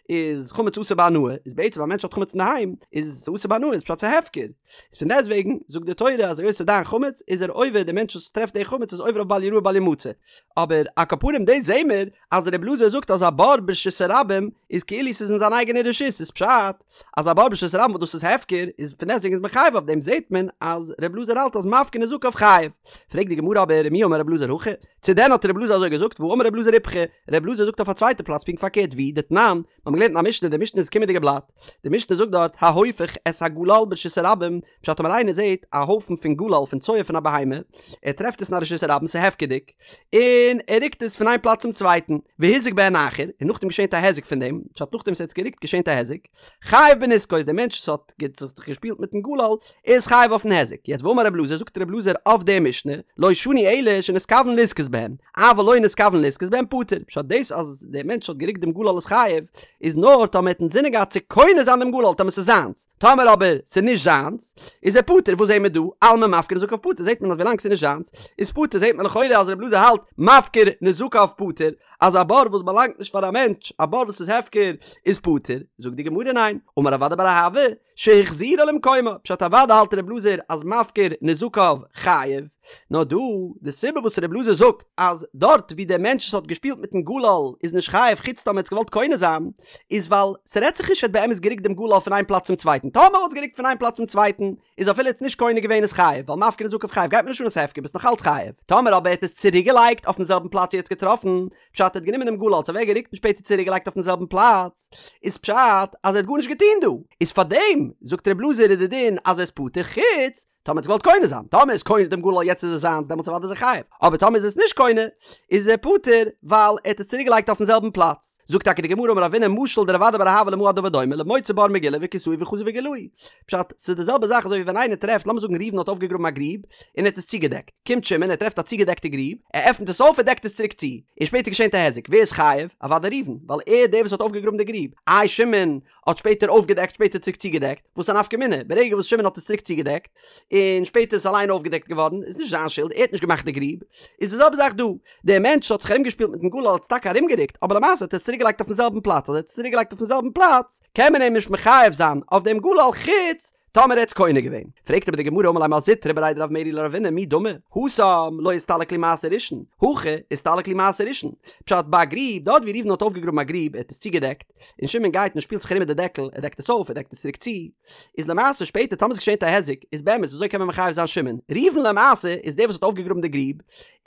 איז חמץ אסור בהנאה, איז בעצם א מענטש האט חמץ אינדערהיים איז עס אסור בהנאה איז פשט ס'איז הפקר, איז פון דעסט וועגן זאגט די תורה אז היות ס'איז דיין חמץ איז ער עובר די מענטש וואס טרעפט די חמץ איז עובר אויף בל יראה בל ימצא, אבער על כל פנים דאס זעהן מיר אז ר' אלעזר זאגט אז א בור ברשות הרבים איז כאילו ס'איז אין זיין אייגענע רשות איז פשט אז א בור ברשות הרבים וואס דאס איז הפקר איז פון דעסטוועגן איז מען חייב אויף דעם זעהט מען אז ר' אלעזר האלט אז מפקיר נזקיו חייב. פרעגט די גמרא אבער ומי אמר ר' אלעזר הכי? צו דען האט ר' אלעזר אזוי געזאגט והאמר ר' אלעזר איפכא, ר' אלעזר זאגט אויף א צווייטע פלאץ פונקט פארקערט ווי דתנן, מיר האבן געלערנט אין א משנה די משנה איז קומענדיגע בלאט די משנה זאגט דארט ההופך את הגלל ברשות הרבים פשט טאמער איינער זעהט א הויפן פון גלל פון צואה פון א בהמה ער טרעפט עס אין א רשות הרבים ס'איז הפקר'דיג און ער רוקט עס פון איין פלאץ צום צווייטן, והזיק בהן אחר, און נאכדעם געשענט א היזק פון דעם, פשט נאכדעם וואס ער האט עס גערוקט געשענט א היזק, חייב בנזקו איז דער מענטש וואס האט זיך געשפילט מיטן גלל איז חייב אויפן היזק, יעצט ואמר רב אלעזר זאגט רב אלעזר אויף די משנה, לא שנו אלא שנתכוון לזכות בהן, אבל לא נתכוון לזכות בהן פטור, פשט דאס אז דער מענטש האט גערוקט דעם גלל איז חייב, איז נאר טאמער ער האט אינזינען געהאט צו קונה זיין דעם גלל טאמער ס'איז זיינס, טאמער אבער ס'איז נישט זיינס, איז ער פטור, וואס זעהן מיר דא? אלמא מפקיר נזקיו פטור, זעהט מען אז ווילאנג ס'איז נישט זיינס, איז פטור, זעהט מען לכאורה אז רב אלעזר האלט מפקיר נזקיו פטור, אז א בור וואס באלאנגט נישט פאר א מענטש, א בור וואס איז הפקר, איז פטור, זאגט די גמרא ניין, אמר רב אדא בר אהבה, שהחזירה למקומה, פשט אוודאי האלט רב אלעזר אז מפקיר נזקיו חייב, נאר דא, די סיבה וואס רב אלעזר זאגט אז דארט ווי דער מענטש וואס האט געשפילט מיטן גלל איז נישט חייב חוץ טאמער ער האט עס געוואלט קונה זיין, איז ווייל ס'רעדט זיך נישט ער האט באמת גערוקט דעם גלל פון איין פלאץ צום צווייטן, טאמער וואלט עס גערוקט פון איין פלאץ צום צווייטן איז אפילו ער האט עס נישט קונה געווען איז חייב, ווייל מפקיר נזקיו חייב גייט מיר נישט אן אז ס'הפקר ביסט נאך אלץ חייב, טאמער אבער ער האט עס צוריק געלייגט אויפן זעלבן פלאץ ווי ער האט עס געטראפן, פשט ער האט גענומען דעם גלל עס אוועק גערוקט און שפעטער צוריק געלייגט אויפן זעלבן פלאץ, איז פשט אז ער האט גארנישט געטון דא, איז פארדעם זאגט רב אלעזר איז די דין אז ער איז פטור חוץ טאמער האט עס געוואלט קונה זיין, טאמער איז קונה דעם גלל יעצט איז עס זיינס דעמאלטס אוודאי איז ער חייב, אבער טאמער איז עס נישט קונה איז ער פטור ווייל ער האט עס צוריק געלייגט אויפן זעלבן פלאץ. זאגט טאקע די גמרא אמר רבינא משל דרב אדא בר אהבה למה הדבר דומה למוצא בור מגולה וכסהו וחזר וגילהו. פשט, ס'איז די זעלבע זאך אזוי ווי ווען איינער טרעפט, לאמיר זאגן ראובן האט אויפגעגראבן א גריב און ער האט עס צוגעדעקט, קומט שמעון ער טרעפט א צוגעדעקטע גריב, ער עפנט עס אויף ער דעקט עס צוריק צו, און שפעטער געשענט א היזק, ווער איז חייב? אוודאי ראובן, ווייל ער איז דער וואס האט אויפגעגראבן די גריב, איי שמעון האט שפעטער אויפגעדעקט שפעטער צוריק צוגעדעקט, וואס א נפקא מינה, ברגע וואס שמעון האט עס צוריק צוגעדעקט, און שפעטער איז עס אליין אויפגעדעקט געווארן, איז נישט זיין שולד, ער האט נישט געמאכט די גריב, איז די זעלבע זאך דא, דער מענטש האט זיך ארומגעשפילט מיטן גלל האט עס טאקע ארומגערוקט, אבער למעשה האט ער עס צוריקגעלייגט אויפן זעלבן פלאץ, אז ער האט עס צוריקגעלייגט אויפן זעלבן פלאץ, קען מען אים נישט מחייב זיין אויף דעם גלל חוץ. טאמער ער האט עס קונה געווען. פרעגט אבער די גמרא אמר ליה מר זוטרא בריה דרב מרי לרבינא מי דמי, התם לא אסתלק להו מעשה ראשון, הכא אסתלק להו מעשה ראשון. פשט ביי א גריב, דארט ווי ראובן האט אויפגעגראבן א גריב, ער האט עס צוגעדעקט, און שמעון גייט און שפילט זיך ארום מיט די דעקל, ער דעקט עס אויף, ער דעקט עס צוריק צו, איז למעשה שפעטער טאמער ס'געשענט א היזק, איז באמת וויאזוי קען מען מחייב זיין שמעון? ראובן למעשה איז דער וואס האט אויפגעגראבן די גריב,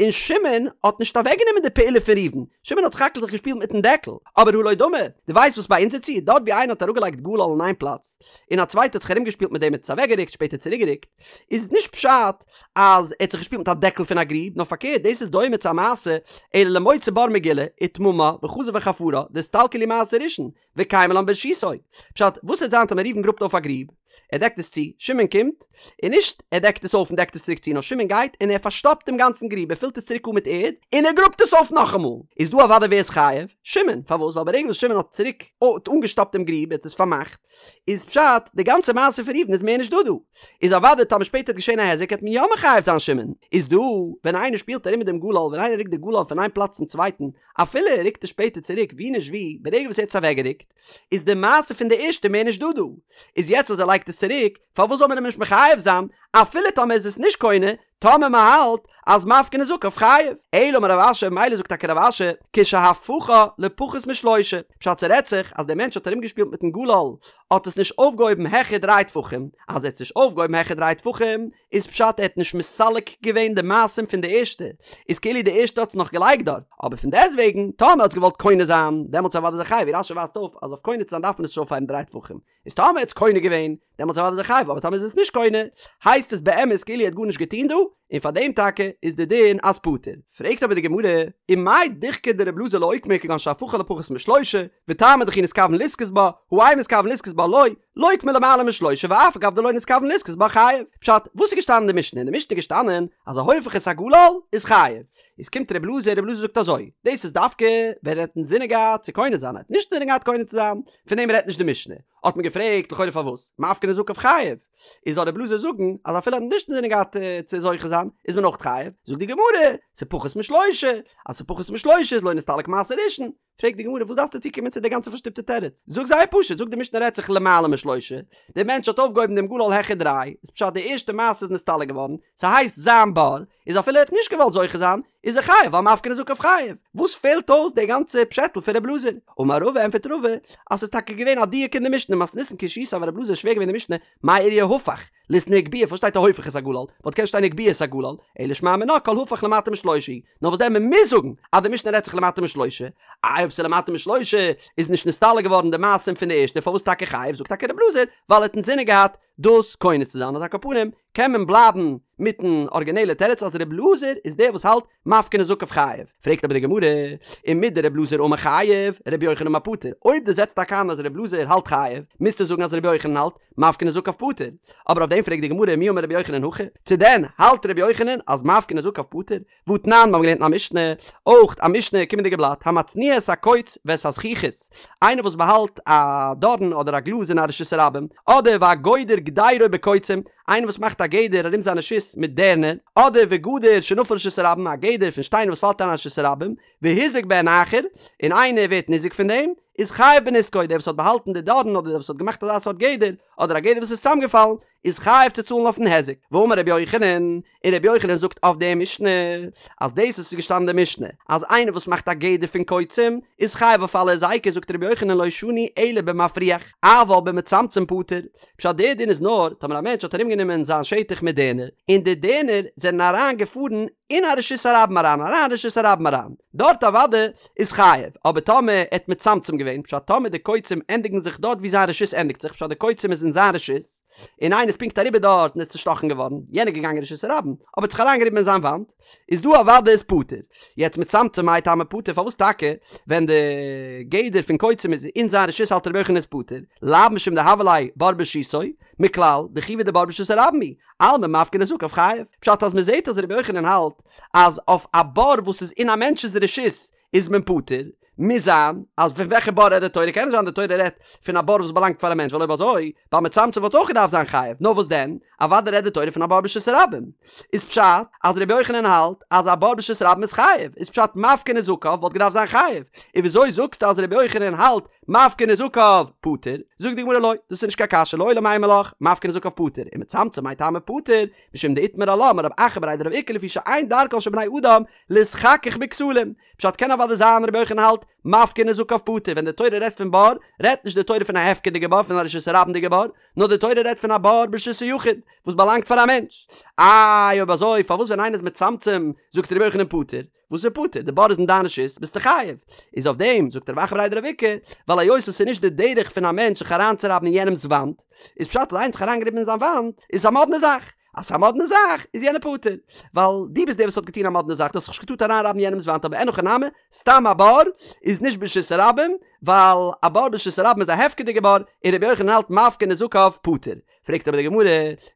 און שמעון האט נישט אוועקגענומען די פעולה פון ראובן, שמעון האט סך הכל זיך געשפילט מיטן דעקל, אבער הא לא דמי, דו ווייסט וואס ביי אונזער ציור, דארט ווי איינער האט אראפגעלייגט גלל אין איין פלאץ, און א צווייטער האט זיך ארומגעשפילט מיט דעם האט עס אוועקגערוקט שפעטער צוריקגערוקט, איז נישט פשט אז ער האט זיך געשפילט מיט א דעקל פון א גריב, נאר פארקערט דאס איז דומה צו א מעשה אלא למוצא בור מגולה וטממה וחזר וחפרה דאסתלקו להו מעשה ראשון וקיימא לן ברשותו. פשט, וואס וועט זיין טאמער ראובן גראבט אויף א גריב, ער דעקט עס צו, שמעון קומט, און נישט ער דעקט עס אויף און דעקט עס צוריק צו, נאר שמעון גייט און ער פארשטאפט דעם גאנצן גריב, ער פילט עס צוריק אן מיט ערד, און ער גראבט עס אויף נאכאמאל. איז דא אוודאי ווער איז חייב? שמעון. פארוואס? ווייל ברגע וואס שמעון האט צוריק אנגעשטאפט דעם גריב, ער האט עס פארמאכט, איז פשט, די גאנצע מעשה פון ראובן איז מער נישט דא דא. איז אוודאי טאמער שפעטער וועט געשען א היזק העט מען יא מחייב זיין שמעון. איז דא, ווען איינער שפילט ארום מיט דעם גלל, ווען איינער רוקט די גלל פון איין פלאץ צום צווייטן, אפילו ער רוקט עס שפעטער צוריק ווי נישט ווי, ברגע וואס ער האט עס אוועקגערוקט, איז די מעשה פון די ערשטע מער נישט דא דא. איז יעצט אז ער לייגט עס צוריק, פארוואס זאל מען אים נישט מחייב זיין, אפילו טאמער איז עס נישט קונה, טאמער מען האלט אז מפקיר נזקיו חייב. אלא אמר רב אשי, מילא זאגט טאקע רב אשי, כשהפכה לפחות משלושה, פשט ס'רעדט זיך אז דער מענטש האט ארומגעשפילט מיטן גלל, האט עס נישט אויפגעהויבן העכער דריי טפחים, אז ער האט עס נישט אויפגעהויבן העכער דריי טפחים, איז פשט ער האט נישט מסלק געווען די מעשים פון די ערשטע, איז כאילו די ערשטע האט עס נאך געלייגט דארט, אבער פון דעסטוועגן טאמער האט עס געוואלט קונה זיין, דעמאלטס אוודאי איז ער חייב, ווי רש"י ווייזט אויף אז אויף קונה צו זיין דארף מען עס נישט אויפהייבן דריי טפחים, איז טאמער האט עס קונה געווען, דעמאלטס אוודאי איז ער חייב, אבער טאמער איז עס נישט קונה, הייסט עס באמת כאילו ער האט גארנישט געטון דא, און פאר דעם טאקע איז די דין אז פטור. פרעגט אבער די גמרא, ומאי דוחקיה דרבי אלעזר לאוקמי כגון שהפכה לפחות משלושה, וטעמא דכי נתכוון לזכות בה, הא אין מתכוון לזכות בה לא, לוקמה למעלה משלושה ואף על גב דלא נתכוון לזכות בה חייב. פשט, וואס איז געשטאנען אין די משנה? אין די משנה איז געשטאנען אז ההופך את הגלל איז חייב. איז קומט רבי אלעזר, רבי אלעזר זאגט אזוי, דאס איז דווקא ווען ער האט אינזינען געהאט צו קונה זיין, ער האט נישט אינזינען געהאט קונה צו זיין, פון דעם רעדט נישט די משנה. האט מען געפרעגט לכאורה פארוואס מפקיר נזקיו חייב, איז זאל רבי אלעזר זאגן אז אפילו ער האט נישט אינזינען געהאט צו זוכה זיין איז מען אויך חייב, זאגט די גמרא, ס'פחות משלושה, אז ס'פחות משלושה איז לא נסתלק מעשה ראשון, פרעגט די גמרא וואס דארפסטו צוקומען צו די גאנצע פארשטופטע תירוץ, זאג זייער פשוט, זאג די משנה רעדט זיך למעלה משלושה, דער מענטש האט אויפגעהויבן דעם גלל העכער דריי, איז פשט די ערשטע מעשה איז נסתלק געווארן, ס'הייסט זיין בור, איז אפילו ער האט נישט געוואלט זוכה זיין, איז ער חייב ווייל מפקיר נזקיו חייב. וואס פעלט אויס די גאנצע פשעטל פון רב אלעזר? אמר רבא ענפערט רבא אז ס'איז טאקע געווען א דיוק אין די משנה מתניתין קשיתיה אבל רב אלעזר איז שווער געווען די משנה מאי איריא הפך ליתני הגביה פארוואס שטייט ההופך את הגלל וואלט קענען שטיין הגביה את הגלל אלא שמע מינה כל הפך למטה משלושה נאר וואס דען מ'מוז זאגן אז די משנה רעדט זיך למטה משלושה איי אויב ס'איז למטה משלושה איז נישט נסתלק געווארן די מעשים פון די ערשטע פארוואס טאקע חייב זאגט טאקע רב אלעזר ווייל ער האט אינזינען געהאט דאס קונה צו זיין אז על כל פנים קען מען בלייבן מיטן ארגינעלע תירוץ אז ר' אלעזר איז דער וואס האלט מפקיר נזקיו חייב. פרעגט אבער די גמרא, ומדר' אלעזר אמר חייב, ר' יוחנן אמר פטור, אויב דו זעצט טאקע איין אז ר' אלעזר האלט חייב, מוזטו זאגן אז ר' יוחנן האלט מפקיר נזקיו פטור. אבער אויף דעם פרעגט די גמרא מי אמר ר' יוחנן הכי, צו דען האלט ר' יוחנן אז מפקיר נזקיו פטור? והתנן, מיר האבן געלערנט אין א משנה, אויך א משנה, קומענדיגע בלאט, המצניע את הקוץ ואת הזכוכית, איינער וואס באהאלט א דארן אדער א גלאז אין א רשות הרבים, אדער והגודר גדירו בקוצים, איינער וואס מאכט א גדר ארום זיין רשות מיט דערנער, אדער וגדר שנפל לרשות הרבים, א גדר פון שטיינער וואס פאלט אריין אין רשות הרבים, והוזק בהן אחר, און איינער ווערט ניזוק פון דעם, איז חייב בנזקו, דער וואס האט באהאלטן די דארן אדער דער וואס האט געמאכט אזא סארט גדר, אדער א גדר וואס איז צוזאמגעפאלן, איז חייב צו צאלן אויפן היזק. ואמר רבי יוחנן, און רבי יוחנן זאגט אויף די משנה, אז דאס וואס איז געשטאנען אין די משנה, אז איינער וואס מאכט א גדר פון קוצים, איז חייב אויף אלע היזקות, זאגט רבי יוחנן לא שנו אלא במפריח, אבל במצמצם פטור. פשט דער דין איז נאר, טאמער א מענטש האט ארומגענומען זיין שטח מיט דערנער, און די דערנער זענען אריין געפארן אין א רשות הרבים אריין, אריין אין רשות הרבים אריין, דארט אוודאי איז חייב, אבער טאמער ער האט מצמצם געווען, פשט טאמער די קוצים ענדיגן זיך דארט ווי זיין רשות ענדיגט זיך, פשט די קוצים איז אין זיין רשות, און איינער איז פונקט אריבער דארט און איז צושטאכן געווארן, יענער איז געגאנגען רשות הרבים, אבער האט זיך אריינגעריבן אין זיין וואנט, איז דא אוודאי איז פטור. יעצט מצמצם מאי טעמא פטור, פארוואס טאקע ווען די גדר פון קוצים איז אין זיין רשות האלט רבי יוחנן איז פטור, לאו משום דהוה ליה בור ברשותו, מכלל דחייבא דבור ברשות הרבים הוא, אלמא מפקיר נזקיו חייב. פשט אז מ'זעט אז רבי יוחנן האלט אז אויף א בור וואס איז אין א מענטש'ס רשות איז מען פטור. מוז זיין אז פון וועלכע בור רעדט די תורה? קען נישט זיין די תורה רעדט פון א בור וואס באלאנגט פאר א מענטש ווייל אויב אזוי ביי מצמצם וואלט אויך געדארפט זיין חייב, נאר וואס דען? אוודאי רעדט די תורה פון א בור ברשות הרבים. איז פשט אז רבי יוחנן האלט אז א בור ברשות הרבים איז חייב, איז פשט מפקיר נזקיו וואלט געדארפט זיין חייב, און וויאזוי זאגסטו אז רבי יוחנן האלט מפקיר נזקיו פטור? זאגט די גמרא לא, דאס איז נישט קיין קשיא לעולם אימא לך מפקיר נזקיו פטור, ומצמצם מאי טעמא פטור, משום דאיתמר עלה אמר רב אחא בריה דרב איקא לפי שאין דרכן של בני אדם להתחכך בכתלים, פשט קען אוודאי זיין רבי יוחנן האלט מפקיר נזקיו פטור ווען די תורה רעדט פון בור רעדט נישט די תורה פון א הפקר'דיגע בור פון א רשות הרבים'דיגע בור נאר די תורה רעדט פון א בור ברשות היחיד וואס באלאנגט פאר א מענטש. איי אויב אזוי פארוואס ווען איינער איז מצמצם זאגט רבי יוחנן פטור? וואס איז פטור? די בור איז אין דיין רשות ביסטו חייב. איז אויף דעם זאגט רב אחא בריה דרב איקא ווייל היות עס איז נישט די דרך פון א מענטש זיך אריינצורייבן אין יענעמ'ס וואנט איז פשט אז איינער האט זיך אריינגעריבן אין זיין וואנט איז עס א מאדנע זאך אז ס'איז א מאדנע זאך איז יענער פטור, ווייל דו ביסט דער וואס האט געטון א מאדנע זאך, דו האסט זיך נישט געטארט אריינרייבן יענעמ'ס וואנט, אבער אין הכי נמי, סתם א בור איז נישט ברשות הרבים, ווייל א בור ברשות הרבים איז א הפקר'דיגע בור, און רבי יוחנן האלט מפקיר נזקיו פטור. פרעגט אבער די גמרא,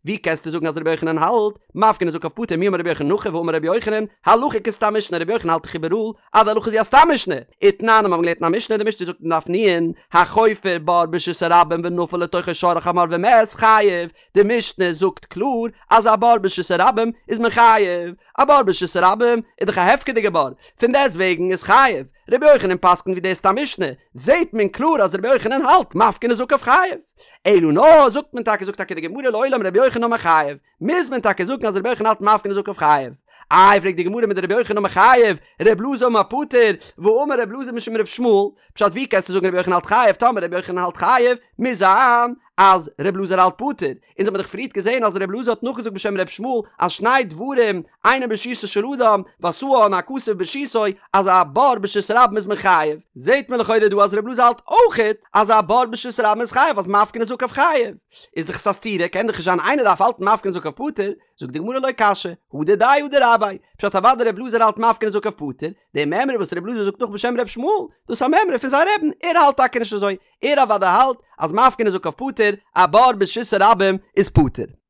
ווי קענסטו זאגן אז רבי יוחנן האלט מפקיר נזקיו פטור, מי אמר רבי יוחנן הכי והאמר רבי יוחנן, הלכה כסתם משנה, רבי יוחנן האלט דאך איבעראל אז די הלכה איז ווי א סתם משנה, ותנן מיר האבן געלערנט אין א משנה, די משנה זאגט אין דף נ', החופר בור ברשות הרבים ונפל לתוכו שור או חמור ומת חייב, די משנה זאגט קלאר אז א בור ברשות הרבים איז מען חייב, א בור ברשות הרבים איז דאך א הפקר'דיגע בור, פון דעסט וועגן איז חייב, רבי יוחנן פסק'נט ווי די סתם משנה, זעהט מען קלאר אז רבי יוחנן האלט מפקיר נזקיו חייב. אלא נאר זאגט מען טאקע זאגט טאקע די גמרא לעולם רבי יוחנן אמר חייב, מוז מען טאקע זאגן אז רבי יוחנן האלט מפקיר נזקיו חייב. איי פרעגט די גמרא מדרבי יוחנן אמר חייב, רבי אלעזר אמר פטור, והאמר רבי אלעזר משום רבי ישמעאל, פשט ווי קענסטו זאגן רבי יוחנן האלט חייב טאמער רבי יוחנן האלט חייב, מוז זיין אז ר' אלעזר האלט פטור, אונז האבן דאך פריערט געזען אז ר' אלעזר האט נאכגעזאגט בשם ר' ישמעאל אז שני דברים אינם ברשותו של אדם ועשאן הכתוב ברשותו אז א בור ברשות הרבים איז מען חייב, זעט מען לכאורה דא אז ר' אלעזר האלט אויכעט אז א בור ברשות הרבים איז חייב אז מפקיר נזקיו חייב, איז דאך עס א סתירה קען דאך נישט זיין איינער דארף האלטן מפקיר נזקיו פטור, זאגט די גמרא לא קשיא, הא דידיה הא דרביה, פשט אוודאי ר' אלעזר האלט מפקיר נזקיו פטור, די מימרא וואס ר' אלעזר זאגט נאך בשם ר' ישמעאל, דאס איז א מימרא פון זיין רבי'ן, ער האלט טאקע נישט אזוי, ער אוודאי האלט אז מפקיר נזקיו פטור, א בור ברשות הרבים איז פטור.